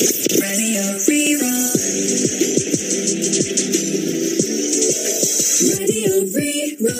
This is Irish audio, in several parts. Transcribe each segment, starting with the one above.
Radio Rí-Rá. Radio Rí-Rá.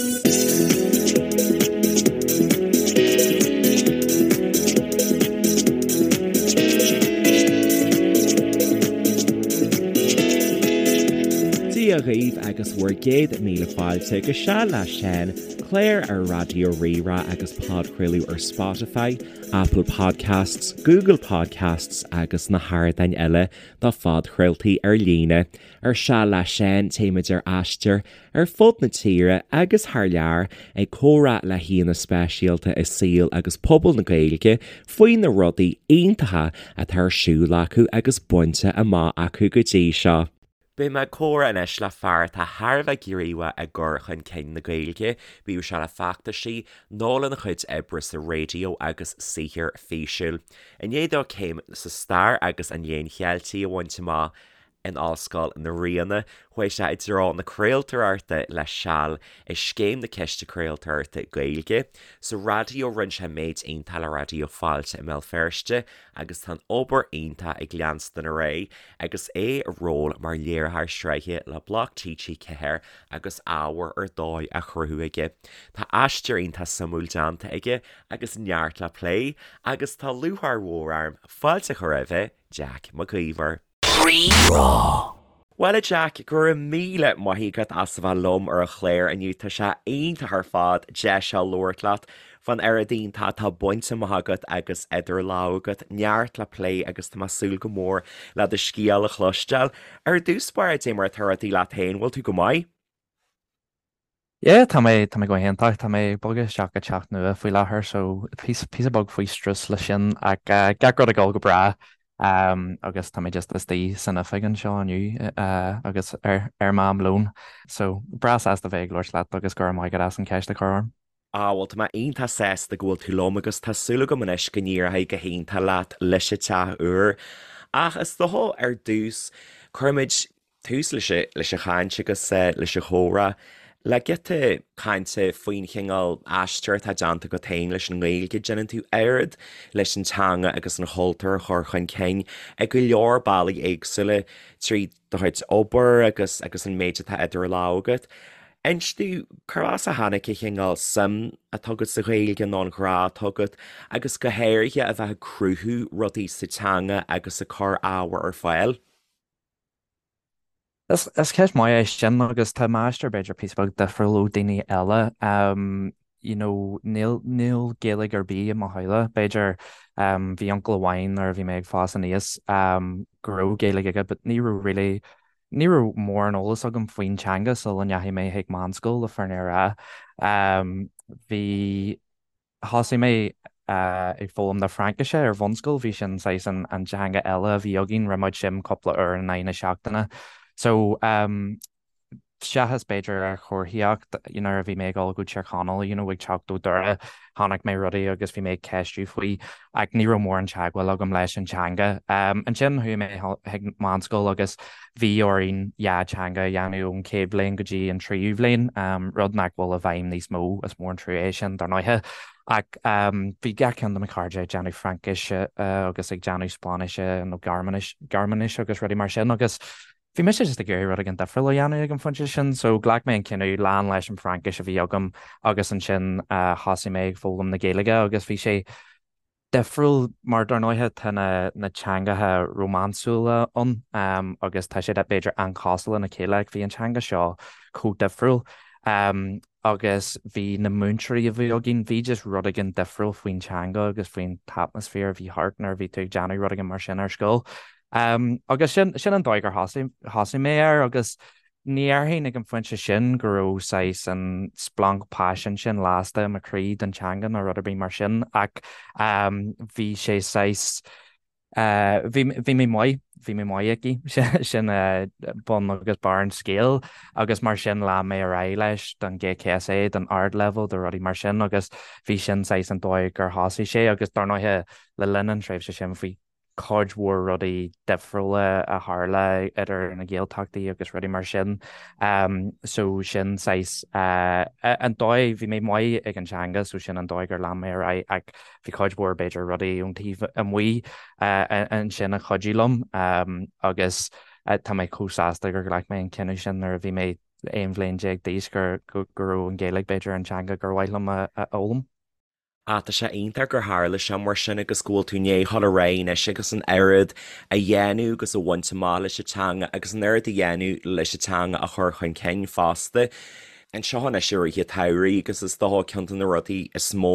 Dia dhaoibh agus bhur gcéad míle fáilte go Seal le Seán, clár ar Raidió Rí-Rá agus podchraoladh ar Spotify, Apple Podcasts, Google Podcasts agus na hardáin eile do phodchraoltaí ar líne. Ar Seal le Seán, téimid ar aistear ar fud na tíre agus thar lear ag comhrá le haíonna speisialta i saol agus pobal na Gaeilge faoi na rudaí iontacha atá ar siúl acu agus bainte amach acu go dtí seo. Beidh mé ag comhrá anois le fear atá thar a bheith gníomhach i gcur chun cinn na Gaeilge, bíodh sé le feachtaisí nó lena chuid oibre sa raidió agus saothar físiúil. I ndiaidh dó céim sa Stair agus an Léann Cheiltigh a bhaint amach in Ollscoil na Ríona, chuaigh sé i dtreo na craoltóireachta le seal i Scéim na Ciste Craoltóireachta Gaeilge. Sa raidió rinne sé méid iontach le Raidió Fáilte i mBéal Feirste agus tá an obair iontach ag leanstan ar aghaidh agus é i ról mar léiritheoir sraithe le Bloc TG4 agus ábhar ar dóigh á chruthú aige. Tá aistear iontach suimiúil déanta aige agus neart le plé agus tá lúcháir mhór orm fáilte a chur roimhe, Jack Mac Íomhair. Rí-Rá. Bhuel a Jack, go raibh míle maith agat as a bheith liom ar an chlár inniu, tá sé iontach ar fad deis a labhairt leat fán oiread iontach atá bainte amach agat agus idir lámha agat, neart le plé agus tá mé ag súil go mór le do scéal a chloisteáil. Ar dtús báire, dé mar atá rudaí leat féin, bhfuil tú go maith? Yeah, tá mé, tá mé go hiontach. Tá mé ag bogadh isteach go teach nua faoi láthair so píosa, píosa beag faoi strus le sin ach gach rud ag dul go breá agus tá mé just istigh san oifig anseo inniu agus ar, ar m'am lóin. So breá sásta bheith ag labhairt leat agus go raibh maith agat as an cheist a chur orm. Ah bhuel tá mé iontach sásta go bhfuil tú liom agus tá súil agam anois go n-éireoidh go hiontach leat leis an teach úr. Ach is dócha ar dtús cuirfimid tús leis an chaint agus leis an chomhrá le giota cainte faoin chineál aistear atá déanta agat féin leis an nGaeilge. Déanann tú oiread leis an teanga agus an chultúr a chur chun cinn i go leor bealaí éagsúla trí do chuid obair agus agus an méid atá idir lámha agat. Inis domh cár as a tháinig an chineál suim atá agat sa Ghaeilge nó an ghrá atá agat agus go háirithe a bheith ag cruthú rudaí sa teanga agus ag cur ábhar ar fáil. Is ceist maith é sin agus tá m'aistear b'fhéidir píosa beag difriúil ó daoine eile. You know, níl, níl Gaeilge ar bith i mo theaghlach. B'fhéidir bhí uncail amháin nuair a bhí mé ag fás aníos go raibh Gaeilge aige but ní raibh really, ní raibh mórán eolas agam faoin teanga sula ndeachaigh mé chuig meánscoil le fírinne a rá. Bhí. Thosaigh mé ag foghlaim na Fraincise ar bhunscoil, bhí sin saghas an teanga eile a bhí againn, rinne muid sin cúpla uair in aghaidh na seachtaine. So seachas b'fhéidir ar chomharthaíocht, you know, nuair a bhí mé ag dul go Tír Chonaill, you know, ag teacht ó Doire, chonaic mé rudaí agus bhí mé ag ceistiú faoi ach ní raibh mórán teagmháil agam leis an teanga. Ansin chuaigh mé chuig meánscoil agus bhí orainn dhá teanga a dhéanamh ón chéad bhliain go dtí an tríú bhliain, rud nach bhfuil i bhfeidhm níos mó, is mór an trua é sin dar ndóighe. Ach bhí gach ceann de mo chairde ag déanamh Fraincise agus ag déanamh Spáinnise nó Gearmáinis agus rudaí mar sin agus bhí mise just ag iarraidh rud éigin difriúil a dhéanamh ag an phointe sin so ghlac mé an cinneadh lean leis an Fhraincis a bhí agam agus ansin thosaigh mé ag foghlaim na Gaeilge agus bhí sé difriúil mar dar ndóighe tá na na teangacha rómánsúla ann agus tá siad b'fhéidir an-chosúil lena chéile ach bhí an teanga seo chomh difriúil agus bhí na múinteoirí a bhí againn, bhí just rud éigin difriúil faoin teanga agus faoin t-atmaisféar a bhí thart nuair a bhí tú ag déanamh rud éigin mar sin ar scoil. Agus sin sin an dóigh gur thosaigh thosaigh mé air agus Ní dhéarfainn ag an phointe sin go raibh saghas an splanc paisin sin lasta i mo chroí don teanga nó rud ar bith mar sin ach bhí sé saghas, bhí, bhí mé maith, bhí mé maith aici, sin bun agus barr an scéil agus mar sin lean mé ar aghaidh leis don GCSE, don ardleibhéal, do rudaí mar sin agus bhí sin saghas an dóigh gur thosaigh sé agus dar ndóighe le linn an tréimhse sin bhí. cuid mhór rudaí difriúla a tharla idir na Gaeltachtaí agus rudaí mar sin. So sin saghas an dóigh, bhí mé maith ag an teanga so sin an dóigh gur lean mé ar aghaidh ach bhí cuid mhór b'fhéidir rudaí ón taobh amuigh ansin a chuidigh liom agus tá mé chomh sásta gur ghlac mé an cinneadh sin nuair a bhí mé 11 bhliain d'aois go raibh an Ghaeilge b'fhéidir an teanga gur mhaith liom a fhoghlaim. Ah, tá sé iontach gur tharla sé mar sin agus go bhfuil tú i ndiaidh dhul ar aghaidh anois agus an oiread a dhéanamh agus a bhaint amach leis an teanga agus an oiread a dhéanamh leis an teanga a chur chun cinn fosta. Anseo anois i rith an tsamhraidh agus is dócha ceann de na rudaí is mó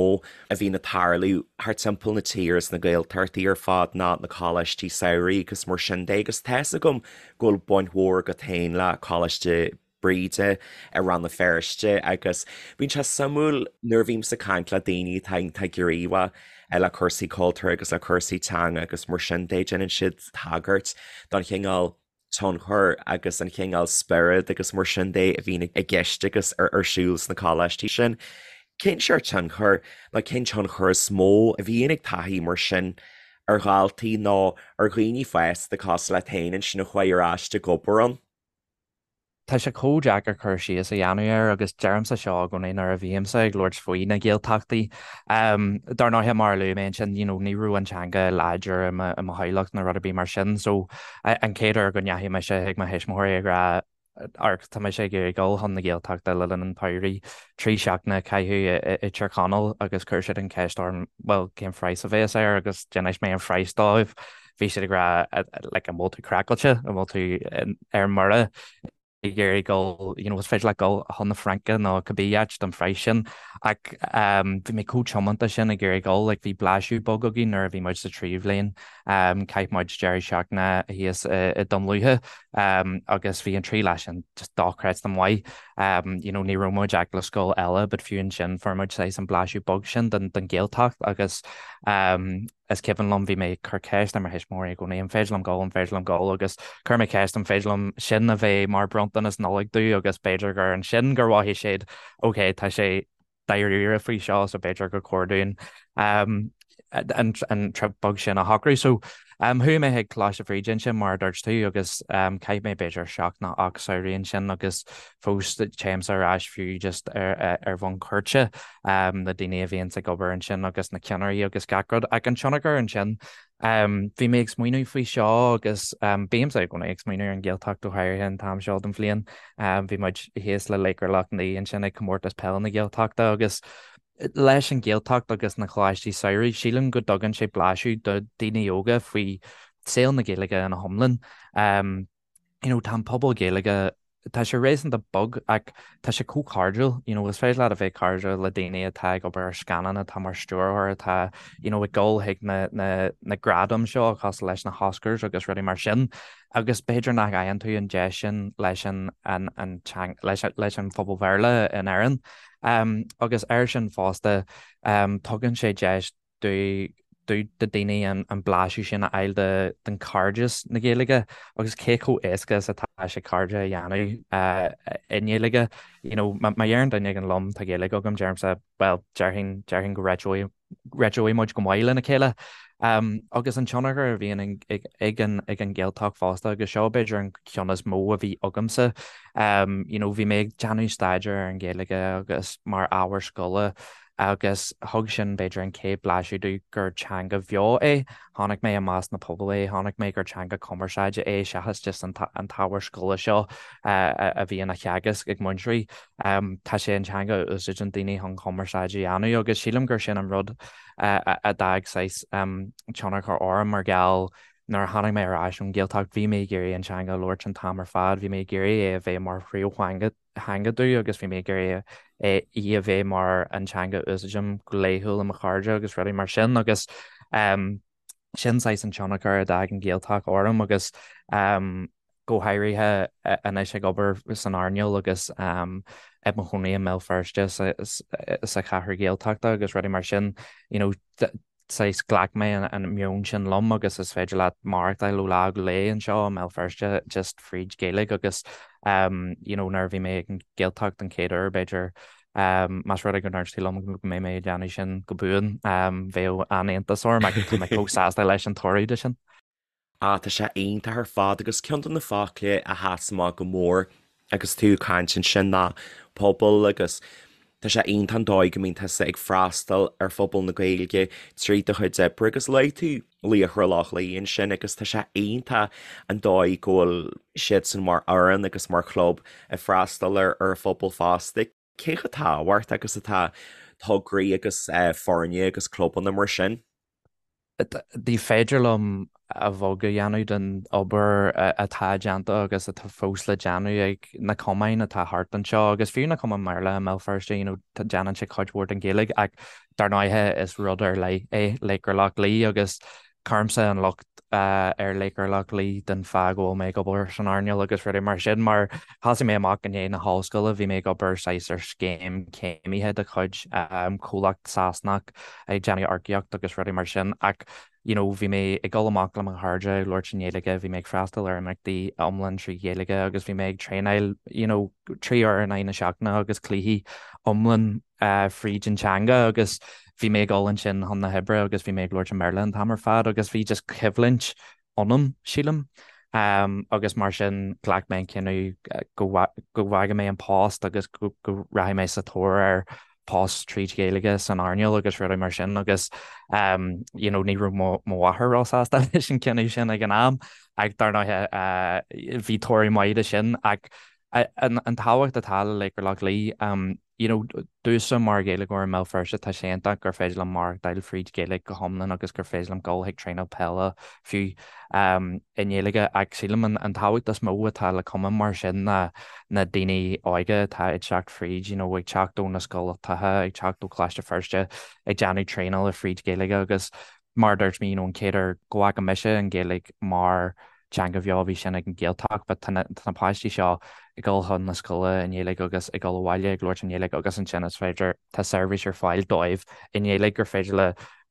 a bhíonn ag tarlú thart timpeall na tíre sna Gaeltachtaí ar fad ná na coláistí samhraidh agus mar sin de agus tá's agam go bhfuil baint mhór agat féin le Coláiste Bríde i Rann na Feirste agus bíonn sé suimiúil nuair a bhímse ag caint le daoine atá iontach gníomhach le cúrsaí cultúir agus le cúrsaí teanga agus mar sin de, déanann siad tagairt don chineál tionchair agus an chineál spiorad agus mar sin de a bhíonn i gceist agus ar siúl sna coláistí sin. Cén seort tionchair nó cén tionchar is mó a bhíonn ag taithí mar sin ar dhaltaí nó ar dhaoine fásta cosúil leat féin ansin a chuaigh ar ais ag obair ann? Tá sé chomh deacair cur síos a dhéanamh air agus deirimse seo i gcónaí nuair a bhímse ag labhairt faoi na Gaeltachtaí. Dar ndóighe, mar a luaigh mé ansin, you know, ní raibh an teanga láidir i mo theaghlach nó rud ar bith mar sin so an chéad uair go ndeachaigh mise chuig mo thuismitheoirí ag rá amharc, tá mise ag iarraidh dul chun na Gaeltachta le linn an tsamhraidh, 3 seachtaine a chaitheamh i dTír Chonaill agus chuir siad an cheist orm, bhuel, cén phraghas a bheas air agus d'inis mé an phraghas dóibh. Bhí siad ag rá like an bhfuil tú craiceáilte, an bhfuil tú ar mire ag iarraidh dul, you know, is féidir leat dul chun na Fraince nó cibé áit don phraghas sin. Ach um, bhí mé chomh tiomanta sin ag iarraidh dul, like bhí blaiseadh beag againn nuair a bhí muid sa tríú bhliain, um, chaith muid deireadh seachtaine thíos i, i Dún Lúiche um, agus bhí an trí lá sin just dochreidte maith. Um, you know, ní raibh muid ach le scoil eile, but fiú ansin fuair muid saghas an blaiseadh beag sin den, den Ghaeltacht agus um, Is cuimhin liom, bhí mé ag cur ceist ar mo thuismitheoirí i gcónaí, an féidir liom dul, an féidir liom dul? Agus chuir mé ceist, an féidir liom sin a bheith mar bronntanas Nollag domh agus b'fhéidir gur ansin gur mhothaigh siad, ok, tá sé dáiríre faoi seo so b'fhéidir gur chóir dúinn an an trip beag sin a shocrú. So chuaigh mé chuig Coláiste Bhríde ansin mar a dúirt tú agus chaith mé b'fhéidir seacht nó 8 samhraidh ansin agus fós téimse ar ais fiú just ar bhonn cuairte. na daoine a bhíonns ag obair ansin agus na ceannairí agus gach rud. Ach an tionchar ansin, bhí mé ag smaoineamh faoi seo agus bímse i gcónaí ag smaoineamh ar an Ghaeltacht go háirithe an t-am seo den bhliain. Bhí muid thíos le Laochra Loch Lao ansin ag comórtas peile na Gaeltachta agus leis an Ghaeltacht agus na coláistí samhraidh, sílim go dtugann sé blaiseadh do daoine óga faoi saol na Gaeilge ina hiomlán. You know, tá an pobal Gaeilge, tá sé réasúnta beag ach tá sé chomh cairdiúil, you know, is féidir leat a bheith cairdiúil le daoine atá ag obair ar scannán, atá mar stiúrthóir, atá, you know, ag dul chuig na, na, na gradaim seo cosúil leis na hOscars agus rudaí mar sin agus b'fhéidir nach bhfaigheann tú an deis sin leis an, an, an teang, leis, leis an phobal Bhéarla in Éirinn. Um, agus air sin fosta, um, tugann sé deis do do daoine an blaiseadh sin a fháil de den cairdeas na Gaeilge agus cé chomh éasca is atá sé cairde a dhéanamh i nGaeilge. You know, má deireann duine éigin liom tá Gaeilge agam, deirimse bhuel déarfainn déarfainn go réiteoidh réiteoidh muid go maith lena chéile. Um, agus an tionchar a bhíonn ag ag an ag an Ghaeltacht fosta agus seo b'fhéidir an ceann is mó a bhí agamsa. Um, you know, bhí mé ag déanamh staidéar ar an Ghaeilge agus mar ábhar scoile agus thug sin b'fhéidir an chéad blaiseadh domh gur teanga bheo é. Chonaic mé i measc na pobal é, chonaic mé gur teanga cumarsáide é seachas just an t-ábhar scoile seo a bhíonn á theagasc ag múinteoirí. Tá sé an teanga a úsáideann daoine chun cumarsáid a dhéanamh agus sílim gur sin an rud a d'fhág saghas tionchar orm mar gheall nuair a tháinig mé ar ais ón Ghaeltacht bhí mé ag iarraidh an teanga a labhairt an t-am ar fad, bhí mé ag iarraidh é a bheith mar phríomhtheanga. theanga domh agus bhí mé ag iarraidh í a bheith mar an teanga a úsáidim go laethúil le mo chairde agus rudaí mar sin agus sin saghas an tionchar a d'fhág an Ghaeltacht orm agus go háirithe anois ag obair san earnáil agus i mo chónaí i mBéal Feirste sa chathair Ghaeltachta agus rudaí mar sin, you know, saghas ghlac mé an meon sin liom agus is féidir leat maireachtáil ó lá go lá anseo i mBéal Feirste just fríd Gaeilge agus you know nuair a bhí mé ag an Ghaeltacht an chéad uair b'fhéidir más rud é go ndúirt tú liom go mbeidh mé ag déanamh sin go buan bheadh an-iontas orm ach tá mé chomh sásta leis an toradh de sin. Ah, tá sé iontach ar fad agus ceann de na focla a sheas amach go mór agus tú ag caint ansin ná pobal agus tá sé iontach an dóigh go mbíonn tusa ag freastal ar phobal na Gaeilge trí do chuid oibre agus luaigh tú Laochra Loch Lao ansin agus tá sé iontach an dóigh go bhfuil siadsan mar fhoireann agus mar chlub ag freastal ar ar phobal fosta. Cé chomh tábhachtach agus atá tograí agus foirne agus clubanna mar sin? Ní féidir liom a bheag a dhéanamh den obair atá déanta agus atá fós le déanamh ag na cumainn atá thart anseo agus fiú na cumainn Bhéarla i mBéal Feirste, you know, déanann siad cuid mhór den Ghaeilge ach dar ndóighe is rud ar leith é Laochra Loch Lao agus Cuirimse an locht ar Laochra Loch Lao den fáth go bhfuil mé ag obair san earnáil agus rudaí mar sin mar thosaigh mé amach i ndiaidh na hollscoile, bhí mé ag obair saghas ar scéim céimithe de chuid comhlacht Sasanach ag déanamh earcaíocht agus rudaí mar sin ach you know bhí mé ag dul amach le mo chairde ag labhairt i nGaeilge, bhí mé ag freastal ar imeachtaí iomlán trí Ghaeilge agus bhí mé ag traenáil you know 3 uair in aghaidh na seachtaine agus cluichí iomlán fríd an teanga agus bhí mé ag dul ansin chun na hoibre agus bhí mé ag labhairt i mBéarla an t-am ar fad agus bhí just coimhlint ionam, sílim. Agus mar sin ghlac mé an cinneadh go bhfágfaidh mé an post agus go rachaidh mé sa tóir ar post tríd Ghaeilge san earnáil agus rudaí mar sin agus you know ní raibh mo mháthair róshásta leis an cinneadh sin ag an am ach dar ndóighe bhí toradh maith de sin ach an tábhacht atá le Laochra Loch Lao you know, domhsa mar Ghaeilgeoir i mBéal Feirste, tá sé iontach gur féidir liom maireachtáil fríd Ghaeilge go hiomlán agus gur féidir liom dul chuig traenáil peile fiú i nGaeilge ach sílim an tábhacht is mó atá le cumann mar sin ná na daoine óga atá ag teacht fríd, you know, ag teacht ó na scoltacha, ag teacht ó Choláiste Feirste, ag déanamh traenála fríd Ghaeilge agus mar a dúirt mé, you know, an chéad uair go bhfaca mise an Ghaeilge mar teanga bheo, bhí sin ag an Ghaeltacht, but tá na, tá na páistí seo ag dul chun na scoile i nGaeilge agus ag dul abhaile ag labhairt i nGaeilge agus ansin is féidir, tá seirbhís ar fáil dóibh i nGaeilge gur féidir le,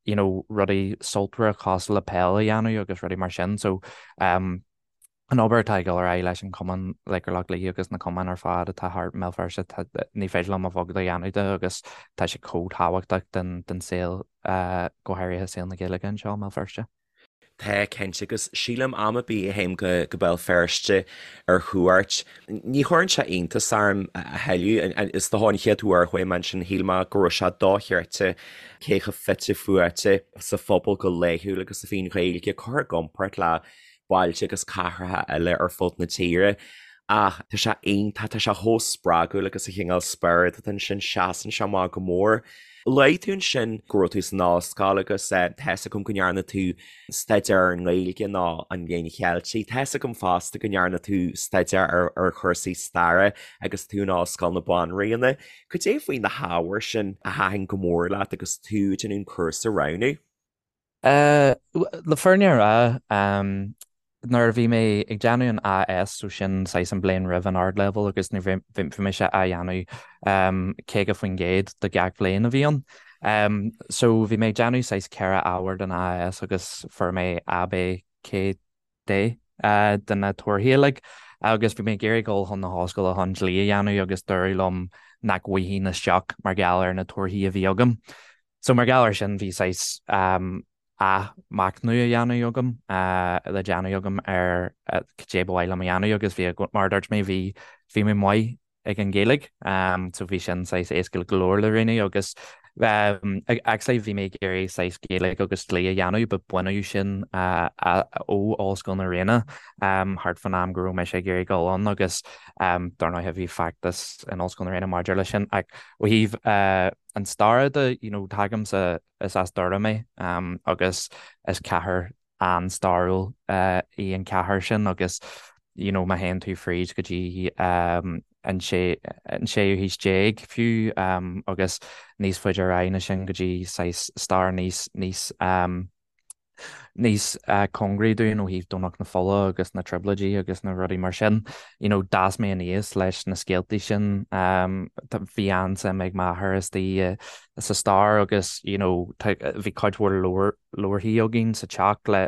you know, rudaí sultmhara cosúil le peil a dhéanamh agus rudaí mar sin. So, um, an obair atá ag dul ar aghaidh leis an chumann Laochra Loch Lao agus na cumainn ar fad atá thart i mBéal Feirste, ní féidir liom a bheag a dhéanamh de agus tá sé chomh tábhachtach den saol, go háirithe saol na Gaeilge anseo i mBéal Feirste. Tá, cinnte, agus sílim am ar bith a théim go Béal Feirste ar chuairt, ní chuireann sé iontas orm a thuilleadh. Is dócha an chéad uair a chuaigh mé ansin shíl mé go raibh sé dochreidte cé chomh fite fuaite sa phobal go laethúil agus a bhí an Ghaeilge curtha i gcomparáid le bailte agus cathracha eile ar fud na tíre. Ach tá sé iontach, tá sé chomh spreagúil agus an cineál spiorad atá ansin, seasann sé amach go mór. Luaigh tú ansin go raibh tú san ollscoil agus tá 'fhios agam go ndearna tú staidéar ar an nGaeilge nó an Léann Cheilteach. Tá 'fhios agam fosta go ndearna tú staidéar ar chúrsaí staire agus tú in Ollscoil na Banríona. Cad é faoi na hábhair sin a thaitin go mór leat agus tú ag déanamh an cúrsa a roghnú? Le fírinne a rá, nuair a bhí mé ag déanamh an AS, so sin saghas an bliain roimh an ardleibhéal agus ní bhí mise á dhéanamh 50% de gach bhliain a bhí ann. So bhí mé ag déanamh saghas 4 ábhar den AS agus fuair mé A, B, C, D de na torthaí uilig agus bhí mé ag iarraidh dul chun na hollscoile chun dlí a dhéanamh agus dúradh liom nach bhfaighinn isteach mar gheall ar na torthaí a bhí agam. So mar gheall air sin bhí saghas athmhachnamh a dhéanamh agam, le déanamh agam ar cad é ba mhaith liom a dhéanamh agus bhí, mar a dúirt mé, bhí, bhí mé maith ag an Ghaeilge so bhí sin saghas éasca go leor le roghnú agus actually bhí mé ag iarraidh saghas Gaeilge agus dlí a dhéanamh but baineadh sin ó Ollscoil na Ríona thart fán am go raibh mise ag iarraidh dul ann agus dar ndóigh bhí feachtas in Ollscoil na Ríona maidir leis sin ach ó thaobh an staire de, you know, tagaimse, is as Doire mé agus is cathair an-stairiúil í an chathair sin agus, you know, má théann tú fríd go dtí an séú haois déag fiú agus níos faide ar aghaidh ná sin go dtí saghas stair níos, níos, níos cóngaraí dúinn ó thaobh Domhnach na Fola agus na Trioblóidí agus na rudaí mar sin. You know, d'fhás mé aníos leis na scéaltaí sin. Bhí an-suim ag m'athair istigh sa stair agus, you know, bhí cuid mhór leabhar, leabharthaí againn sa teach le,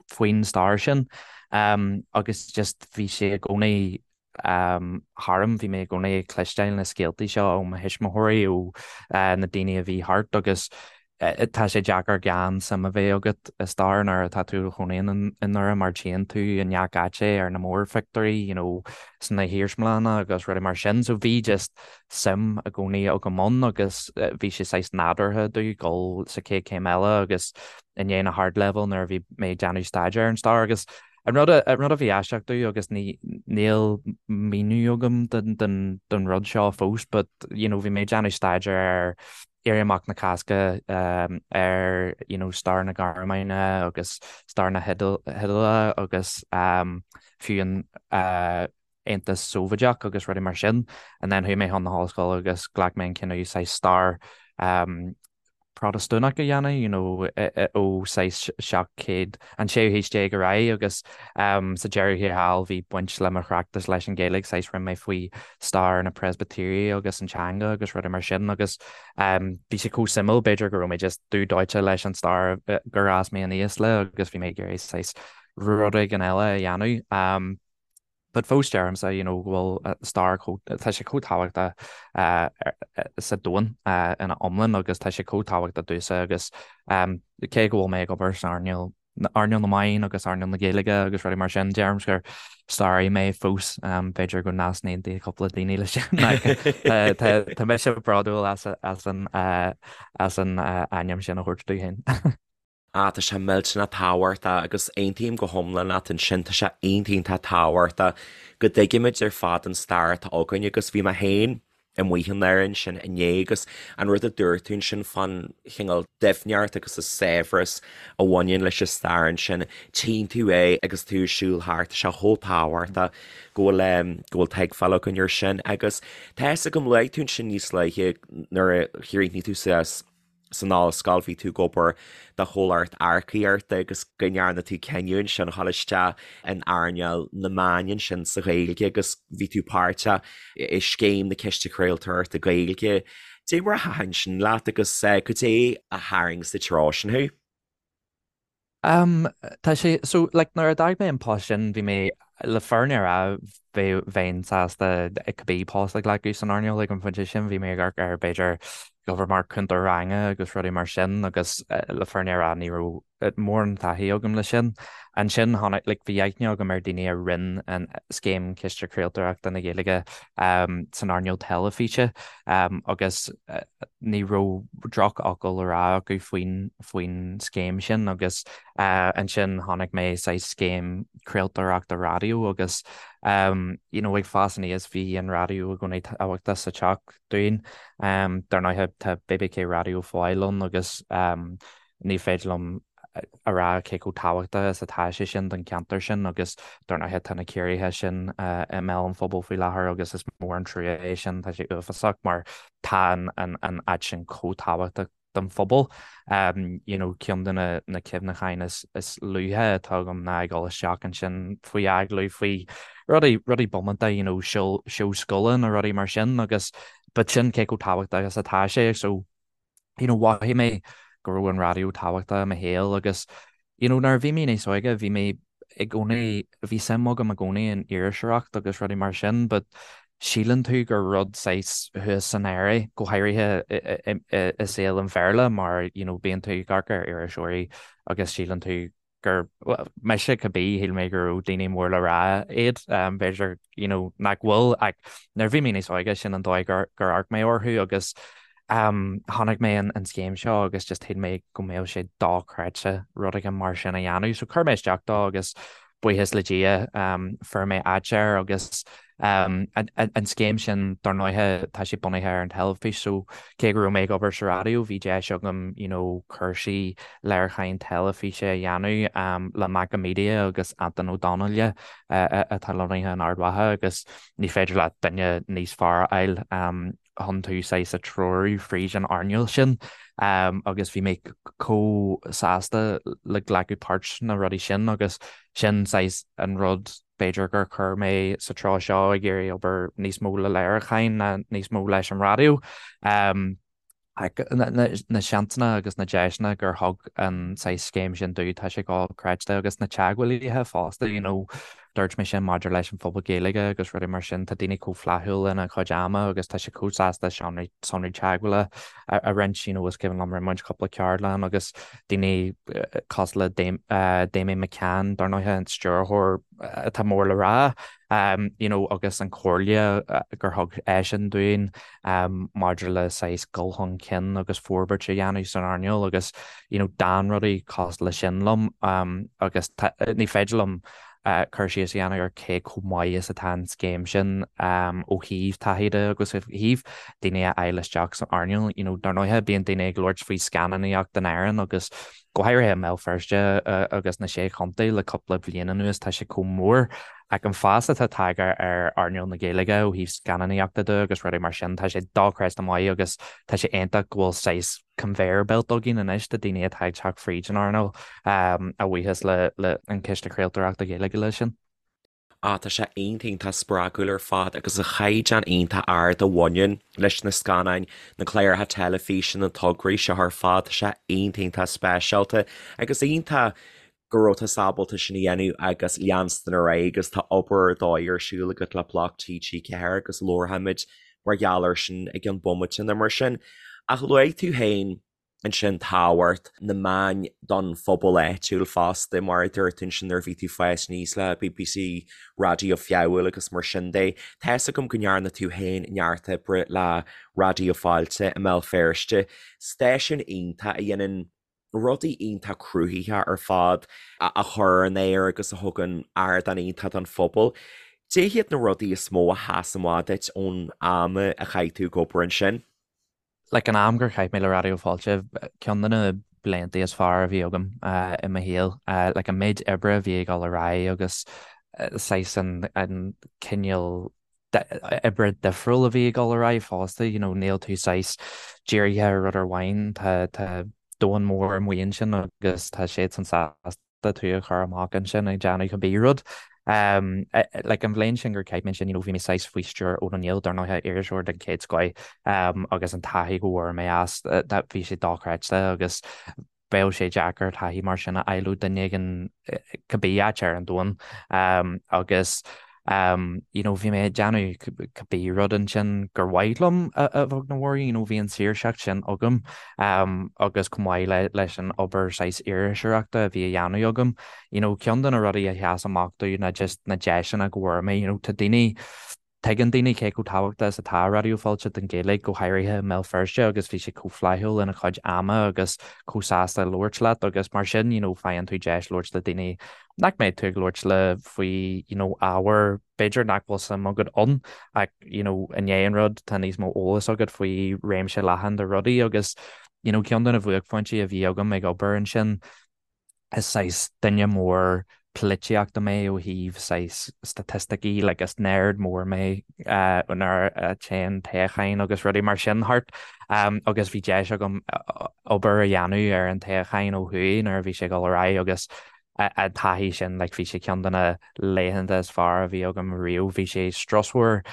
faoin stair sin. Agus just bhí sé i gcónaí tharam, bhí mé i gcónaí ag cloisteáil na scéaltaí seo ó mo thuismitheoirí, ó na daoine a bhí thart agus. Tá sé deacair gan suim a bheith agat i stair nuair atá tú i do chónaí i nDoire mar tchíonn tú i ngach áit é ar na mórphictiúirí, you know, sna hiarsmalanna agus rudaí mar sin. So bhí just suim i gcónaí agam ann agus bhí sé saghas nádúrtha domh dul sa chéad chéim eile agus i ndiaidh na hardleibhéil nuair a bhí mé ag déanamh staidéar ar an stair agus an rud an rud a bhí aisteach domh agus ní níl míniú agam don don don rud seo fós but you know bhí mé ag déanamh staidéar ar Éirí Amach na Cásca ar you know stair na Gearmáine agus stair na hIodáile agus fiú an Aontas Sóivéadach agus rudaí mar sin. And then chuaigh mé chun na hollscoile agus ghlac mé an cinneadh saghas stair Protastúnach a dhéanamh, you know, ó saghas 700, an séú haois déag ar aghaidh agus sa deireadh thiar thall bhí baint le mo thráchtas leis an Ghaeilge, saghas rinne mé faoi stair na Preispitéirí agus an teanga agus rudaí mar sin agus bhí sé chomh suimiúil, b'fhéidir go raibh mé just dubh dóite leis an stair gur fhás mé aníos le agus bhí mé ag iarraidh saghas rud éigin eile a dhéanamh. But fós deirimse you know go bhfuil stair chomh, tá sé chomh tábhachtach sa domhan ina iomlán agus tá sé chomh tábhachtach domhsa agus cé go bhfuil mé ag obair san earnáil earnáil na meán agus earnáil na Gaeilge agus rudaí mar sin, deirim gur staraí mé fós, b'fhéidir go n-easaontaíonn cúpla daoine leis sin ach tá mise bródúil as an as an ainm sin a thabhairt domh féin. Ah, tá sé millteanach tábhachtach agus aontaím go hiomlán leat ansin, tá sé iontach tábhachtach go dtuigimid ar fad an stair atá againn agus bhí mé féin amuigh i nDoire ansin inné agus an rud a dúirt tú ansin fán chineál doimhneacht agus an saibhreas a bhaineann leis an stair ansin, tchíonn tú é agus tú ag siúl thart, tá sé chomh tábhachtach go bhfuil go bhfuil tuigbheáil againn air sin agus tá fhios agam luaigh tú ansin níos luaithe nuair a chríochnaigh tú suas san ollscoil, bhí tú ag obair do chomhlacht earcaíochta agus go ndearna tú cinneadh ansin a dhul isteach in earnáil na meán ansin sa Ghaeilge agus bhí tú páirteach i scéim na Ciste Craoltóireachta Gaeilge. Dé mar a thaitin sin leat agus cad é a tharraing sa treo sin thú? Um, tá sé, so, like, nuair a d'fhág mé an post sin, bhí mé, le fírinne a rá, bhí, bheinn sásta cibé post a ghlacadh san earnáil ag an phointe sin, bhí mé ag amharc ar, b'fhéidir, obair mar cúntóir ranga agus rudaí mar sin agus le fírinne a rá ní raibh mórán taithí agam leis sin. Ansin tháinig, like, bhí aithne agam ar daoine a rinne an scéim Ciste Craoltóireachta na Gaeilge um, san earnáil teilifíse um, agus ní raibh drochfhocal le rá acu faoin faoin scéim sin agus ansin chonaic mé saghas scéim craoltóireachta raidió agus you know ag fás aníos bhí an raidió i gcónaí tábhachtach sa teach dúinn. Dar ndóigh tá BBK Raidió Foyle ann agus ní féidir liom a rá cé chomh tábhachtach is atá sé sin don cheantar sin agus dar ndóigh tá na ciorruithe sin i mbéal an phobail faoi láthair agus is mór an trua é sin, tá sé uafásach mar tá an áit sin chomh tábhachtach don phobal. You know ceann de na na cuimhneacháin is is luaithe atá agam ná ag dul isteach ansin faoi agallamh faoi rudaí rudaí bómánta you know seó seó scoile nó rudaí mar sin agus but sin cé chomh tábhachtach is atá sé so you know mhothaigh mé go raibh an raidió tábhachtach i mo shaol agus you know nuair a bhí mé níos óige bhí mé i gcónaí, bhí suim agam i gcónaí in iriseoireacht agus rudaí mar sin but síleann tú gur rud saghas thuas san aer é, go háirithe i saol an Bhéarla mar you know bíonn tú ag amharc ar iriseoirí agus síleann tú gur, bhuel, mise cibé, shíl mé go raibh daoine mór le rá iad, b'fhéidir you know nach bhfuil ach nuair a bhí mé níos óige sin an dóigh gur amharc mé orthu agus Chonaic mé an scéim seo agus just shíl mé go mbeadh sé dochreidte rud éigin mar sin a dhéanamh. So chuir mé isteach dó agus buíochas le Dia fuair mé áit air agus an scéim sin dar ndóighe tá sé bunaithe ar an teilifís so cé go raibh mé ag obair sa raidió bhí deis agam you know cúrsaí léiriúcháin teilifíse a dhéanamh le Macha Media agus Antain Ó Donnghaile atá lonnaithe in Ard Mhacha agus ní féidir leat duine níos fearr a fháil chun tú saghas a treorú fríd an earnáil sin agus bhí mé chomh sásta le glacadh páirt sna rudaí sin agus sin saghas an rud b'fhéidir gur chuir mé sa treo seo ag iarraidh obair níos mó le léiriúcháin ná níos mó leis an raidió. Na seansanna agus na deiseanna gur thug an saghas scéim sin domh tá sé dochreidte agus na teagmhálaithe fosta you know. Dúirt mé sin maidir leis an phobal Gaeilge agus rudaí mar sin, tá daoine chomh flaithiúil lena chuid ama agus tá siad chomh sásta sonraí sonraí teagmhála a roinnt, you know, is cuimhin liom rinne muid cúpla ceardlann agus daoine cosúil le Damian McCann, dar ndóighe, an stiúrthóir atá mór le rá, you know, agus an chomhairle gur thug eisean dúinn maidir le saghas dul chun cinn agus forbairt a dhéanamh san earnáil agus, you know, d'fhan rudaí cosúil leis sin liom agus ní féidir liom cur síos a dhéanamh ar cé chomh maith is atá an scéim sin ó thaobh taithí de agus ó thaobh daoine a fháil isteach san earnáil. You know, dar ndóighe, bíonn daoine ag labhairt faoi scannánaíocht in Éirinn agus go háirithe i mBéal Feirste agus na Sé Chontae le cúpla bliain anuas, tá sé chomh mór. Ach an fás atá tagtha ar earnáil na Gaeilge ó thaobh scannánaíochta de agus rudaí mar sin, tá sé dochreidte maith agus tá sé iontach go bhfuil saghas conveyor belt againn anois de daoine atá ag teacht fríd an earnáil, a bhuíochas le an Ciste Craoltóireachta Gaeilge leis sin. Ah, tá sé iontach, iontach spreagúil ar fad agus an chaighdeán iontach ard a bhaineann leis na scannáin, na cláracha teilifíse, na tograí seo ar fad, tá sé iontach, iontach speisialta agus iontach go raibh tusa ábalta sin a dhéanamh agus leanstan ar aghaidh agus tá obair ar dóigh ar siúl agat le Bloc TG4 agus labharfaimid mar gheall air sin i gceann bomaite nó mar sin. Ach luaigh tú féin ansin tábhacht na meáin don phobal áitiúil fosta, mar a dúirt tú ansin nuair a bhí tú ag fás aníos le BBC Raidió Feabhail agus mar sin de. Tá fhios agam go ndearna tú féin neart oibre le Raidió Fáilte i mBéal Feirste, stáisiún iontach a dhéanann rudaí iontach cruthaitheacha ar fad a chur ar an aer agus a thugann ardán iontach don phobal. Cad iad na rudaí is mó a sheas amach duit ón am a chaith tú ag obair ansin? Like an am gur chaith mé le Raidió Fáilte, ceann de na blianta is fearr a bhí agam i mo shaol. Like an méid oibre a bhí ag dul ar aghaidh agus saghas an cineál oibre difriúil a bhí ag dul ar aghaidh fosta, you know, níl tú saghas dírithe ar rud amháin, tá tá domhan mór amuigh ansin agus tá siadsan sásta tú a chur amach ansin ag déanamh cibé rud. Um, like an bhliain sin gur chaith mé ansin, you know, bhí mé saghas faoi stiúir Eoin Ó Néill, dar ndóighe, iriseoir den chéad scoith, um, agus an taithí go bhfuair mé as, bhí sé dochreidte agus bheadh sé deacair taithí mar sin a fháil ó duine éigin cibé áit ar an domhan agus you know bhí mé ag déanamh cibé rud ansin gur mhaith liom a bheag nó mhór, you know bhí an saoirseacht sin agam agus chomh maith le leis an obair saghas iriseoireachta a bhí a dhéanamh agam, you know ceann de na rudaí a sheas amach domh ná just na deiseanna go bhfuair mé, you know tá daoine Tuigeann daoine cé chomh tábhachtach is atá Raidió Fáilte don Ghaeilge, go háirithe i mBéal Feirste agus bhí siad chomh flaithiúil lena chuid ama agus chomh sásta labhairt leat agus mar sin you know faigheann tú deis labhairt le daoine nach mbeidh tú ag labhairt le faoi you know ábhar b'fhéidir nach bhfuil suim agat ann ach you know i ndiaidh an rud tá níos mó eolas agat faoi réimse leathan de rudaí agus you know ceann de na bhuaicphointí a bhí agam ag obair ansin is saghas duine mór polaitíochta mé ó thaobh saghas staitisticí, like is nerd mór mé nuair a téann toghcháin agus rudaí mar sin thart agus bhí deis agam obair a dhéanamh ar an toghchán ó thuaidh nuair a bhí sé ag dul ar aghaidh agus an taithí sin like bhí sé ceann de na laethanta is fearr a bhí agam riamh. Bhí sé strusmhar,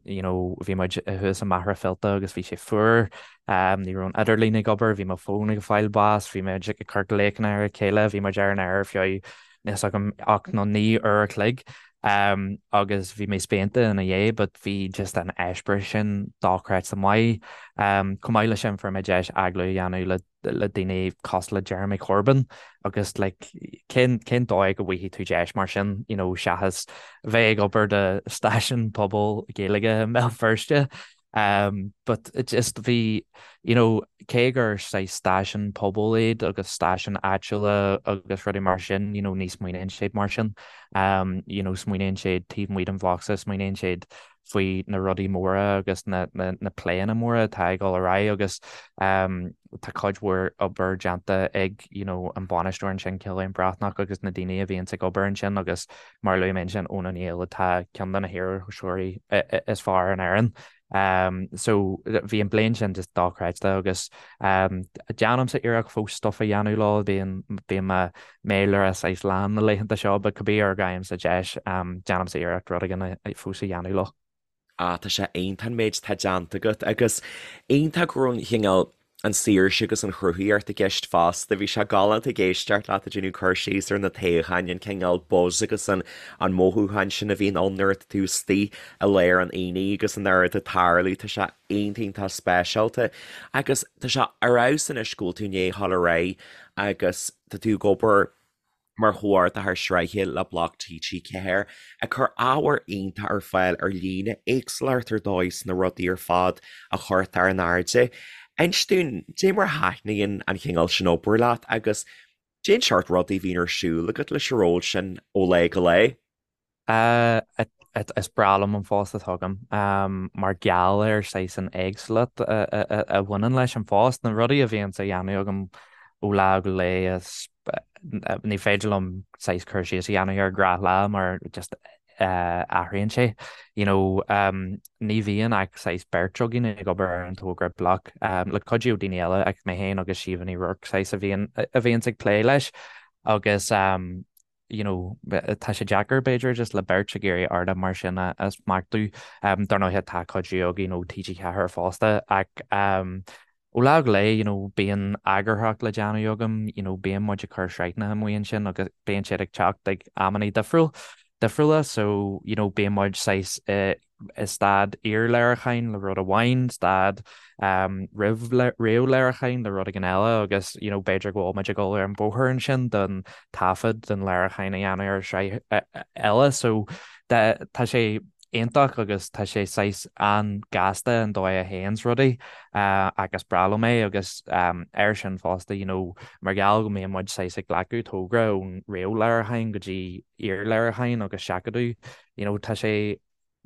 you know bhí muid thuas i Machaire Fíolta agus bhí sé fuar, ní raibh an idirlíon ag obair, bhí mo fón ag fáil bás, bhí muid ag cur glaochanna ar a chéile, bhí muid ar an aer ar feadh níl fhios agam 8 nó 9 uair a chloig agus bhí mé spíonta ina dhiaidh but bhí just an eispéireas sin dochreidte maith. Chomh maith leis sin fuair mé deis agallamh a dhéanamh le le daoine cosúil le Jeremy Corbyn agus like cén cén dóigh go bhfaighidh tú deis mar sin you know seachas bheith ag obair do stáisiún pobail Gaeilge i mBéal Feirste um but it just bhí you know cé gur saghas stáisiún pobail iad agus stáisiún áitiúla agus rudaí mar sin you know ní smaoiníonn siad mar sin um you know smaoiníonn siad taobh amuigh den bhocsa smaoiníonn siad faoi na rudaí móra agus na pléanna móra atá ag dul ar aghaidh agus tá cuid mhór obair déanta ag you know an bainisteoir ansin Cillian Breathnach agus na daoine a bhíonns ag obair ansin agus mar a luaigh mé ansin Eoin Ó Néill atá ceann de na hiriseoirí is fearr in Éirinn. So bhí an bliain sin just dochreidte agus déanaimse iarracht fós stuff a dhéanamh leo, bíonn bíonn mo mhéara saghas lán na laethanta seo but cibé uair a fhaighimse deis déanaimse iarracht rud éigin fós a dhéanamh leo. Ah tá sé iontach an méid atá déanta agat agus iontach go raibh an chineál. An saoirse agus an chruthaíocht i gceist fosta. Bhí sé galánta ag éisteacht leat ag déanamh cur síos ar na toghcháin, an cineál buzz agus an an mothúchán sin a bhíonn ann nuair atá tú istigh i lár an aonaigh agus an oiread ag tarlú. Tá sé iontach iontach speisialta. Agus tá sé ar fheabhas anois go bhfuil tú i ndiaidh a dhul ar aghaidh agus tá tú ag obair mar chomhordaitheoir sraithe le Bloc TG4, ag cur ábhar iontach ar fáil ar líne, éagsúlacht ar dóigh sna rudaí ar fad a chuirtear in airde. Inis dúinn, dé mar a thaitníonn an chineál sin obair leat agus cén seort rudaí a bhíonn ar siúl agat leis an ról sin ó lá go lá? Is breá liom an phost atá agam mar gheall ar saghas an éagsúlacht a bhaineann leis an phost, na rudaí a bhíonns á dhéanamh agam ó lá go lá is ní féidir liom saghas cur síos a dhéanamh ar ghnáthlá mar just athraíonn sé. You know, ní bhíonn ach saghas beirt againn ag obair ar an togra Bloc le cuidiú ó daoine eile ach mé féin agus Síomha Ní Ruairc saghas a bhíonn a bhíonns ag plé leis agus you know, tá sé deacair b'fhéidir just le beirt ag iarraidh ardán mar sin a smachtú. Dar ndóighe tá cuidiú againn ó TG4 fosta ach ó lá go lá, you know, bíonn eagarthóireacht le déanamh agam, you know, bíonn muid ag cur sraitheanna amuigh ansin agus bíonn siad ag teacht ag amannaí difriúil, difriúla so, you know, bíonn muid saghas i i staid iarléiriúcháin le rud amháin, staid roimh réamhléiriúcháin le rud éigin eile agus you know b'fhéidir go bhfuil muid ag dul ar an bóthar ansin don taifead don léiriúchán a dhéanamh ar shraith eile. So tá sé iontach agus tá sé saghas an-ghasta an dóigh a théanns rudaí agus is breá liom é agus air sin fosta you know mar gheall go mbíonn muid saghas ag glacadh togra ón réamhléiriúchán go dtí iarléiriúchán agus seachadadh you know tá sé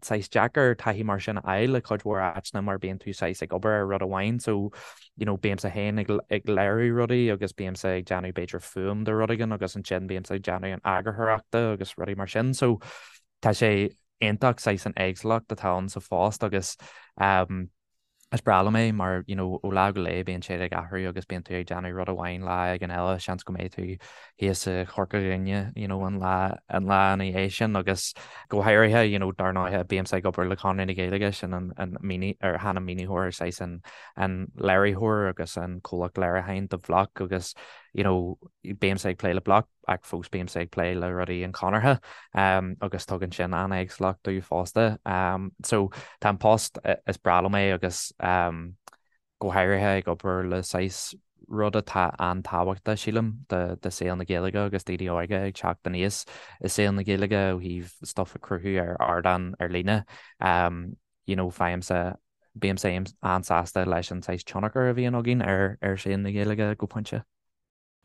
saghas deacair taithí mar sin a fháil le cuid mhór áiteanna mar bíonn tú saghas ag obair ar rud amháin so you know bímse féin ag ag léiriú rudaí agus bímse ag déanamh b'fhéidir fuaim de rud éigin agus ansin bímse ag déanamh an eagarthóireachta agus rudaí mar sin so tá sé iontach saghas an éagsúlacht atá ann sa phost agus um Is breá liom é mar you know ó lá go lá bíonn sé ag athrú agus bíonn tú ag déanamh rud amháin lá éigin eile, seans go mbeidh tú thíos i Chorca Dhuibhne you know an lá an lá ina dhiaidh sin agus go háirithe you know dar ndóighe bímse ag obair le Conradh na Gaeilge sin an an míní ar chan an maoinitheoir saghas an an léiritheoir agus an comhlacht léiriúcháin do Bhloc agus you know bímse ag plé le Bloc ach fós bímse ag plé le rudaí an Chonartha agus tugann sin an-éagsúlacht domh fosta. So tá an post, is breá liom é agus go háirithe ag obair le saghas rud atá an-tábhachtach, sílim, do saol na Gaeilge agus daoine óga ag teacht aníos i saol na Gaeilge ó thaobh stuff a chruthú ar ardán ar líne. You know, faighimse, bímse an-sásta leis an saghas tionchar a bhíonn againn ar ar saol na Gaeilge go pointe.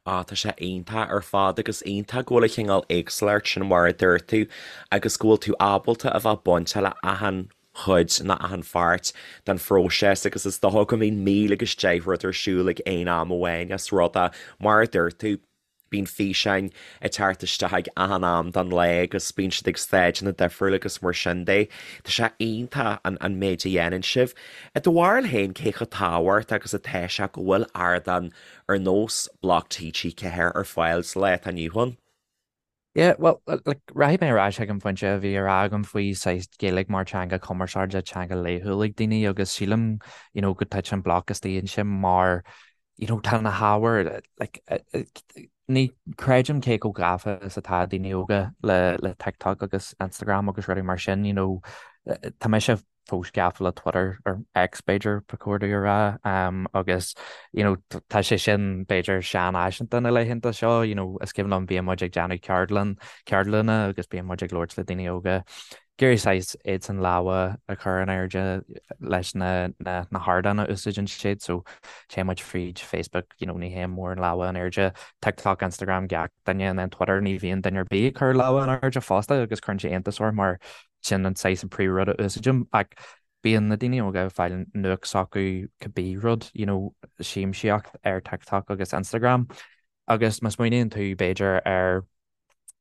Á, tá sé iontach ar fad agus iontach go bhfuil an chineál éagsúlacht sin mar a dúirt tú agus go bhfuil tú ábalta a bheith bainteach le achan chuid nó achan pháirt den phróiseas agus is dócha go mbíonn 1000 agus 10 rud ar siúl ag aon am amháin as rud é mar a dúirt tú bíonn físeáin ag teacht isteach ag achan am den lá agus bíonn siad ag stáideanna difriúla agus mar sin de. Tá sé iontach an an méid a dhéanann sibh. I do bharúil féin cé chomh tábhachtach agus atá sé go bhfuil ardán ar nós Bloc TG4 ar fáil sa lá atá inniu ann. Yeah, well, like, rachaidh mé ar ais ag an phointe a bhí á rá agam faoi saghas Gaeilge mar teanga cumarsáide, teanga laethúil ag daoine agus sílim, you know, go dtiteann Bloc istigh ansin mar, you know, tá na hábhair, like, ní creidim cé chomh gafa is atá daoine óga le, le TikTok agus Instagram agus rudaí mar sin, you know, tá mise fós gafa le Twitter, or X b'fhéidir ba chóir domh a rá, agus you know tá sé sin b'fhéidir seanfhaiseanta na laethanta seo, you know is cuimhin liom bíonn muid ag déanamh ceardlann, ceardlanna agus bíonn muid ag labhairt le daoine óga, ag iarraidh saghas iadsan lámha a chur in airde leis na na na hardáin a úsáideann siad so téann muid fríd Facebook, you know ní théann mórán lámha in airde, TikTok, Instagram gach duine and then Twitter ní bhíonn duine ar bith ag cur lámha in airde fosta agus cuireann sé iontas orm mar Sin an saghas an príomhrud a úsáidim ach bíonn na daoine óga ag fáil nuacht s'acu cibé rud, you know, siamsaíocht ar TikTok agus Instagram agus má smaoiníonn tú b'fhéidir ar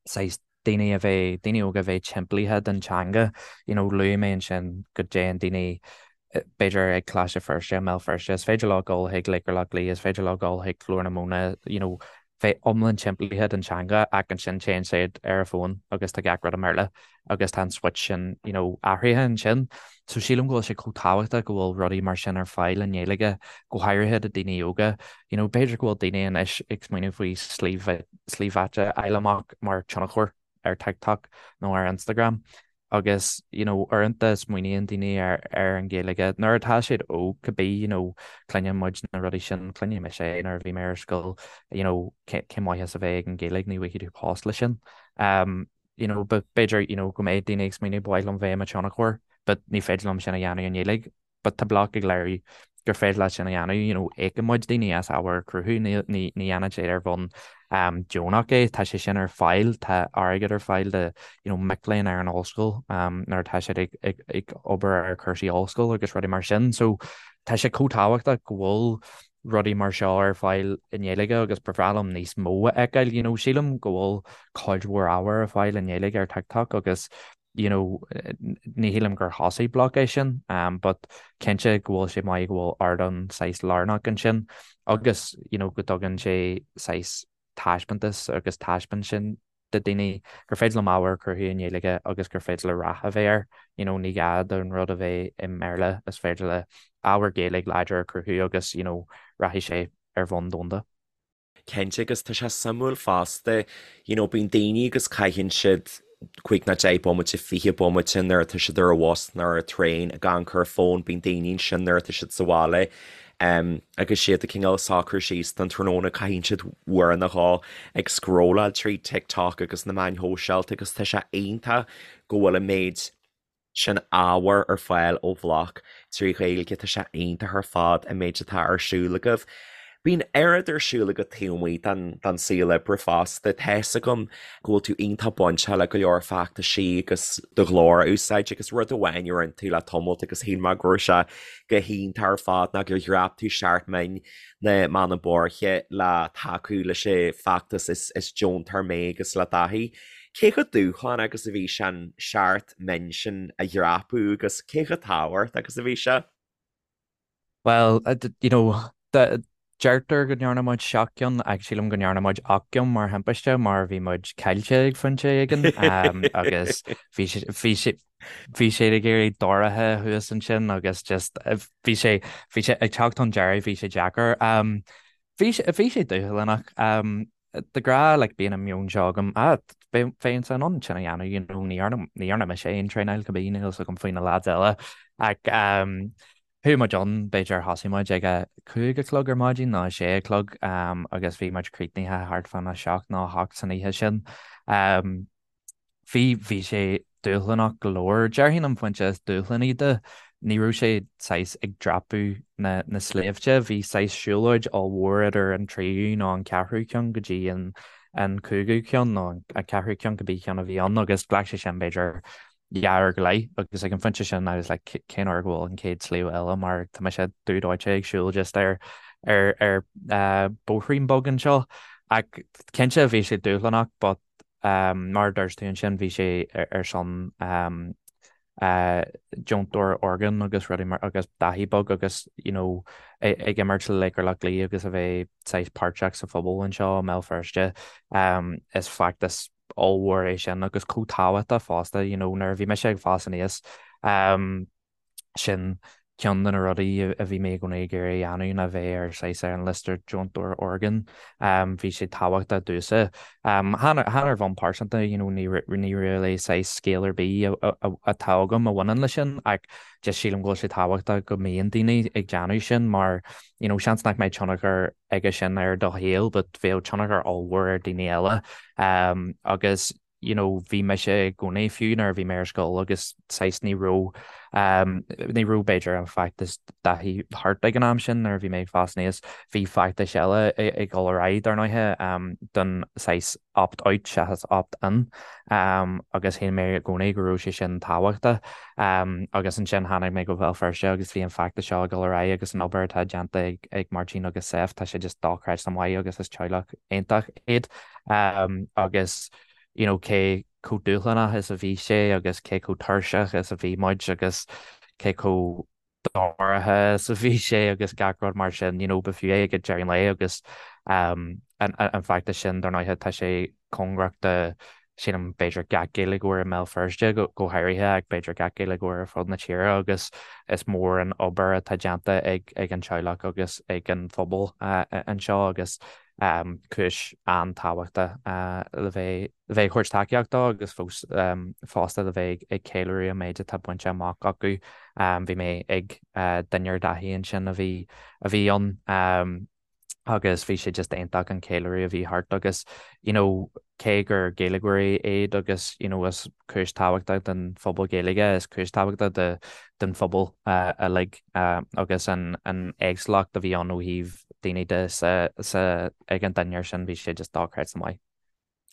saghas daoine a bheith, daoine óga a bheith timpeallaithe den teanga, you know, luaigh mé ansin go dtéann daoine b'fhéidir ag Coláiste Feirste, i mBéal Feirste, is féidir leo dul chuig Laochra Loch Lao, is féidir leo dul chuig Glór na Móna, you know, bheith iomlán timpeallaithe den teanga ach ansin téann siad ar a bhfón agus tá gach rud i mBéarla agus tá an switch sin you know athraithe ansin. So sílim go bhfuil sé chomh tábhachtach go bhfuil rudaí mar sin ar fáil i nGaeilge, go háirithe do daoine óga. You know b'fhéidir go bhfuil daoine anois ag smaoineamh faoi slí slí bheatha a fháil amach mar tionchóir ar TikTok nó ar Instagram agus you know uaireanta smaoiníonn daoine ar ar an Ghaeilge nuair atá siad óg cibé you know cluineann muid na rudaí sin, cluineann mise é nuair a bhí mé ar scoil you know cén maitheas a bheith ag an Ghaeilge ní bhfaighidh tú post leis sin. Um you know but b'fhéidir you know go mbeidh daoine ag smaoineamh ba mhaith liom bheith i mo tionchóir but ní féidir liom sin a dhéanamh i nGaeilge but tá Bloc ag léiriú gur féidir leat sin a dhéanamh, you know, íocann muid daoine as ábhar a chruthú, ní, ní, ní dhéanann siad ar bhonn um, deonach é, tá sé sin ar fáil, tá airgead ar fáil do, you know, mic léinn ar an ollscoil um, nuair atá siad ag, ag, ag obair ar chúrsaí ollscoile agus rudaí mar sin, so tá sé chomh tábhachtach go bhfuil rudaí mar seo ar fáil i nGaeilge agus ba bhreá liom níos mó a fheiceáil, you know, sílim go bhfuil cuid mhór ábhar ar fáil i nGaeilge ar TikTok agus you know, ní shílim gur thosaigh Bloc é sin, but cinnte go bhfuil sé maith go bhfuil ardán saghas lárnach ansin agus, you know, go dtugann sé saghas taispeántas agus taispeáint sin do daoine gur féidir liom ábhar a chruthú i nGaeilge agus gur féidir le rath a bheith air, you know, ní gá don rud a bheith i mBéarla, is féidir le ábhar Gaeilge láidir a chruthú agus, you know, rachaidh sé ar bhonn domhanda. Cinnte, agus tá sé suimiúil fosta, you know, bíonn daoine agus caitheann siad 5 nó 10 bomaite, 20 bomaite nuair atá siad ar an bhus nó ar an traein ag amharc ar an bhfón, bíonn daoine ansin nuair atá siad sa bhaile um, agus siad ag cineál socrú síos don tráthnóna caitheann siad uair nó dhó ag scrolláil trí TikTok agus na meáin shóisialta agus tá sé iontach go bhfuil an méid sin ábhar ar fáil ó Bhloc trí Ghaeilge, tá sé iontach ar fad an méid atá ar siúl agaibh. Bíonn oiread ar siúl agat taobh amuigh den saol oibre fosta. Tá fhios agam go bhfuil tú iontach bainteach le go leor feachtaisí agus do ghlór a úsáid agus rud amháin a rinne tú le tamalt agus shíl mé go raibh sé go hiontach ar fad ná gur dhreap tú seacht mbinn na mBeanna Boirche le tacú leis an bhfeachtas Is Deontóir Mé agus le Dáithí. Cé chomh dúshlánach agus a bhí sé an seacht mbinn sin a dhreapadh agus cé chomh tábhachtach agus a bhí sé? Bhuel, you know, deirtear go ndearna muid seacht gceann ach sílim go ndearna muid ocht gceann mar thimpiste mar bhí muid caillte ag phointe éigin agus bhí sé, bhí sé, bhí sé ag éirí dorcha thuas ansin agus just bhí sé, bhí sé ag teacht chun deiridh, bhí sé deacair. Bhí sé, bhí sé dúshlánach. De ghnáth like bíonn an meon seo agam, ah bheinnse in ann sin a dhéanamh, you know, ní dhearna, ní dhearna mise aon traenáil cibé, níl fhios agam faoi na lads eile. Ach um, chuaigh muid ann, b'fhéidir thosaigh muid ag a 5 a chlog ar maidin nó a 6 a chlog um, agus bhí muid críochnaithe thart fán a 7 nó a 8 san oíche sin. Um, Bhí, bhí sé dúshlánach go leor. Déarfainn an pointe is dúshlánaí de, ní raibh sé saghas ag dreapadh na, na sléibhte, bhí saghas siúlóid ollmhór idir an tríú nó an ceathrú ceann go dtí an, an cúigiú ceann nó an ceathrú ceann, cibé ceann a bhí ann agus ghlac sé sin b'fhéidir dhá uair go leith agus ag an phointe sin I was like cén uair go bhfuil an chéad sliabh eile mar tá mise dubh dóite ag siúl just ar, ar, ar bóithrín beag anseo. Ach cinnte bhí sé dúshlánach but Mar a dúirt tú ansin, bhí sé ar son deontóir orgán agus rudaí mar agus Dáithí Beag agus you know ag imirt le Laochra Loch Lao agus a bheith saghas páirteach sa phobal anseo i mBéal Feirste. Is feachtas ollmhór é sin agus chomh tábhachtach fosta you know nuair a bhí mise ag fás aníos Sin ceann de na rudaí a bhí mé i gcónaí ag iarraidh a dhéanamh ná bheith ar saghas ar an liosta deontóir orgán. Bhí sé tábhachtach domhsa. Chan ar bhonn pearsanta, you know, ní really saghas scéal ar bith atá agam a bhaineann leis sin ach just sílim go bhfuil sé tábhachtach go mbíonn daoine ag déanamh sin mar, you know, seans nach mbeidh tionchar aige sin ar do shaol but bheadh tionchar ollmhór ar daoine eile. Agus you know bhí mise i gcónaí fiú nuair a bhí mé ar scoil agus saghas ní raibh um, ní raibh b'fhéidir an feachtas Dáithí thart ag an am sin nuair a bhí mé ag fás aníos bhí feachtais eile ag dul ar aghaidh dar ndóighe um, don saghas opt out seachas opt in um, agus shíl mé i gcónaí go raibh sé sin tábhachtach um, agus ansin tháinig mé go Béal Feirste agus bhí an feachtas seo ag dul ar aghaidh agus an obair atá déanta ag, ag Máirtín agus Sef tá sé just dochreidte maith agus is teaghlach iontach iad. Agus you know cé chomh dúshlánach is a bhí sé agus cé chomh tuirseach is a bhí muid agus cé chomh dorcha is a bhí sé agus gach rud mar sin, you know, ba fiú é ag deireadh an lae agus. An feachtas sin, dar ndóighe, tá sé cóngarach do, sílim, b'fhéidir gach Gaeilgeoir i mBéal Feirste go háirithe ach b'fhéidir gach Gaeilgeoir ar fud na tíre agus is mór an obair atá déanta ag an teaghlach agus ag an phobal anseo agus cúis an-tábhachtach le bheith le bheith ag thabhairt tacaíocht dó agus fós fosta le bheith ag ceiliúradh an méid atá bainte amach acu. Bhí mé ag dinnéar Dáithí ansin a bhí a bhí ann. agus bhí sé just iontach an ceiliúradh a bhí thart agus you know cé gur Gaeilgeoirí iad agus you know is cúis tábhachtach don phobal Gaeilge is cúis tábhachtach do don phobal uilig agus an an éagsúlacht a bhí ann ó thaobh daoine de sa sa ag an dinnéar sin bhí sé just dochreidte maith.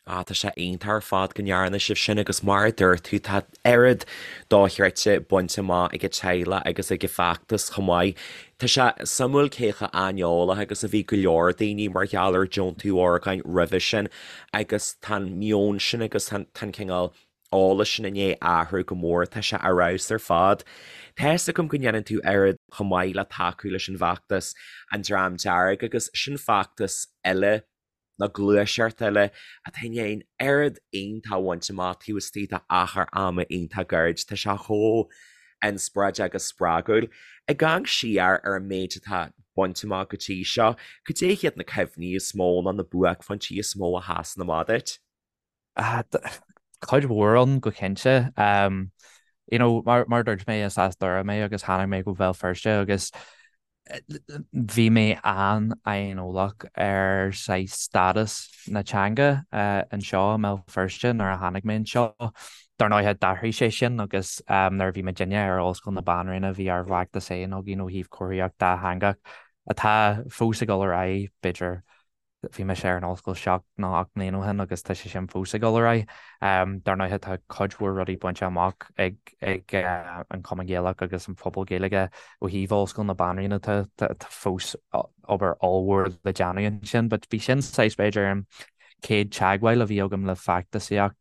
Ah, tá sé iontach ar fad go ndearna sibh sin agus mar a dúirt tú, tá oiread dochreidte bainte amach ag an teaghlach agus ag an bhfeachtas chomh maith. Tá sé suimiúil cé chomh aineolach agus a bhí go leor daoine mar gheall ar deontú orgáin roimhe sin agus tá an meon sin agus tá an cineál eolais sin i ndiaidh athrú go mór, tá sé ar fheabhas ar fad. Tá fhios agam go ndéanann tú oiread chomh maith le tacú leis an bhfeachtas An Dream Dearg agus sin feachtas eile nó gluaiseacht eile atá i ndiaidh an oiread iontach a bhaint amach taobh istigh d'achar ama iontach gairid. Tá sé chomh inspioráideach agus spreagúil. Ag amharc siar ar an méid atá bainte amach go dtí seo, cad é hiad na cuimhní is mó nó na buaicphointí is mó a sheasann amach duit? Cuid mhór ann go cinnte. You know, mar mar a dúirt mé is as Doire mé agus tháinig mé go Béal Feirste agus bhí mé an-aineolach ar saghas stádas na teanga anseo i mBéal Feirste nuair a tháinig mé anseo. Dar ndóighe d'athraigh sé sin agus nuair a bhí muidinne ar Ollscoil na Banríona bhí ár bhfeachtas féin againn ó thaobh comharthaíocht dátheangach atá fós ag dul ar aghaidh, b'fhéidir Bhí mise ar an ollscoil 7 nó 8 mbliana ó shin agus tá sé sin fós ag dul ar aghaidh. Dar ndóighe tá cuid mhór rudaí bainte amach ag ag an Chumann Gaelach agus an phobal Gaeilge ó thaobh Ollscoil na Banríona tá tá fós obair ollmhór le déanamh ansin but bhí sin saghas b'fhéidir an chéad teagmháil a bhí agam le feachtasaíocht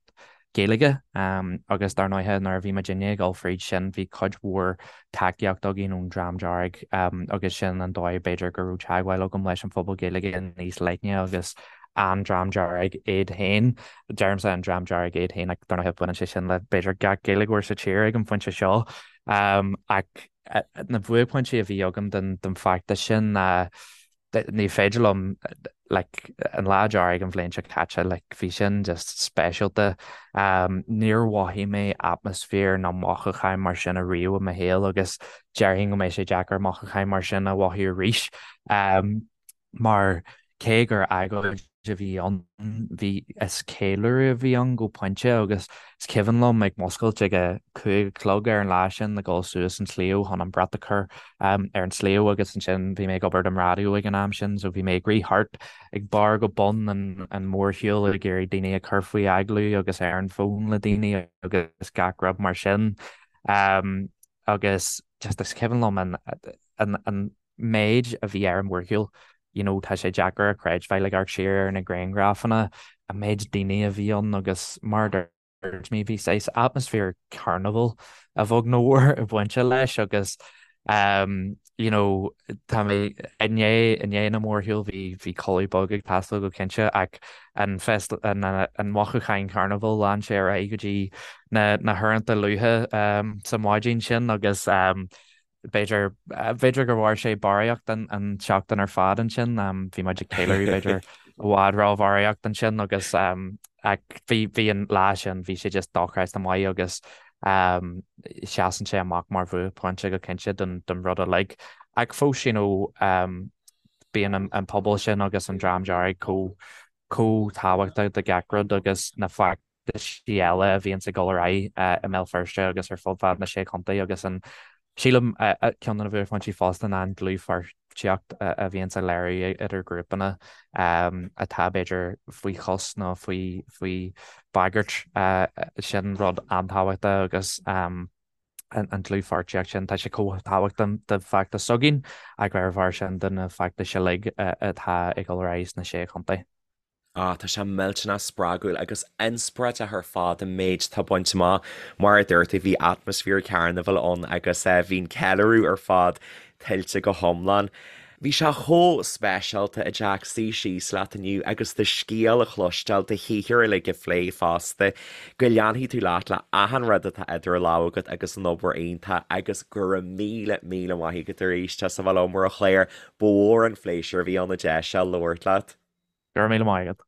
Gaeilge agus dar ndóighe nuair a bhí muidinne ag dul fríd sin bhí cuid mhór tacaíocht againn ón Dream Dearg agus sin an dóigh b'fhéidir go raibh teagmháil agam leis an phobal Gaeilge níos leithne agus an Dream Dearg iad féin. Deirimse an Dream Dearg iad féin ach dar ndóighe baineann sé sin le b'fhéidir gach Gaeilgeoir sa tír ag an phointe seo. Ach na buaicphointí a bhí agam den feachtas sin ná ní féidir liom like an Lá Dearg an bhliain seo caite like bhí sin just speisialta. Níor mhothaigh mé atmaisféar ná mothúcháin mar sin ariamh i mo shaol agus déarfainn go mbeidh sé deacair mothúcháin mar sin a mhothú arís. Mar cé gur agóid a bhí ann, bhí, is ceiliúradh a bhí ann go pointe agus is cuimhin liom ag muscailt ag a 5 a chlog ar an lá sin ag dul suas an sliabh chun an brat a chur ar an sliabh agus ansin bhí mé ag obair don raidió ag an am sin so bhí mé ag rith thart ag barr go bun an an mhórshiúil ag iarraidh daoine a chur faoi agallamh agus ar an bhfón le daoine agus gach rud mar sin agus just is cuimhin liom an an an méid a bhí ar an mhórshiúl, you know tá sé deacair a chreidbheáil ag amharc siar ar na grianghrafanna, an méid daoine a bhí ann agus mar a dúirt mé bhí saghas atmaisféar carnival a bheag nó mhór ag baint leis agus um you know tá mé i ndiaidh i ndiaidh na mórshiúil bhí bhí codladh beag ag teastáil go cinnte ach an fest an an mothúcháin carnival lean sé ar aghaidh go dtí na na huaireanta luatha um sa mhaidin sin agus um B'fhéidir, b'fhéidir gur mhair sé barraíocht an an tseachtain ar fad ansin. Bhí muid ag ceiliúradh b'fhéidir i bhfad róbharraíocht ansin agus ach bhí bhí an lá sin bhí sé just dochreidte maith agus seasann sé amach mar bhuaicphointe go cinnte don don rud uilig. Ach fós you know bíonn an an pobal sin agus an Dream Dearg chomh chomh tábhachtach do gach rud agus na feachtaisí eile a bhíonns ag dul ar aghaidh i mBéal Feirste agus ar fud fad na Sé Chontae agus an, sílim, ceann de na buaicphointí fosta ná an dlúthpháirtíocht a bhíonns á léiriú idir grúpanna atá b'fhéidir faoi chos nó faoi faoi bhagairt. Sin rud an-tábhachtach agus an dlúthpháirtíocht sin, tá sé chomh tábhachtach do feachtas s'againn ach ar a bharr sin do na feachtais uilig atá ag dul ar aghaidh sna Sé Chontae. Ah, tá sé millteanach spreagúil agus inspioráideach ar fad an méid atá bainte amach. Mar a dúirt tú, bhí atmaisféar carnabhail ann agus bhí an ceiliúradh ar fad tuillte go hiomlán. Bhí sé chomh speisialta, a Jack, suí síos leat inniu agus do scéal a chloisteáil, do shaothar uilig a phlé fosta. Go leanfaidh tú leat le achan rud atá idir lámha agat agus an obair iontach agus go raibh míle, míle maith agat arís as a bheith liom ar an chlár. Ba mhór an phléisiúr a bhí ann an deis seo labhairt leat. Go raibh míle maith agat.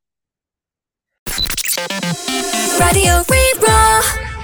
Raidió Rí-Rá.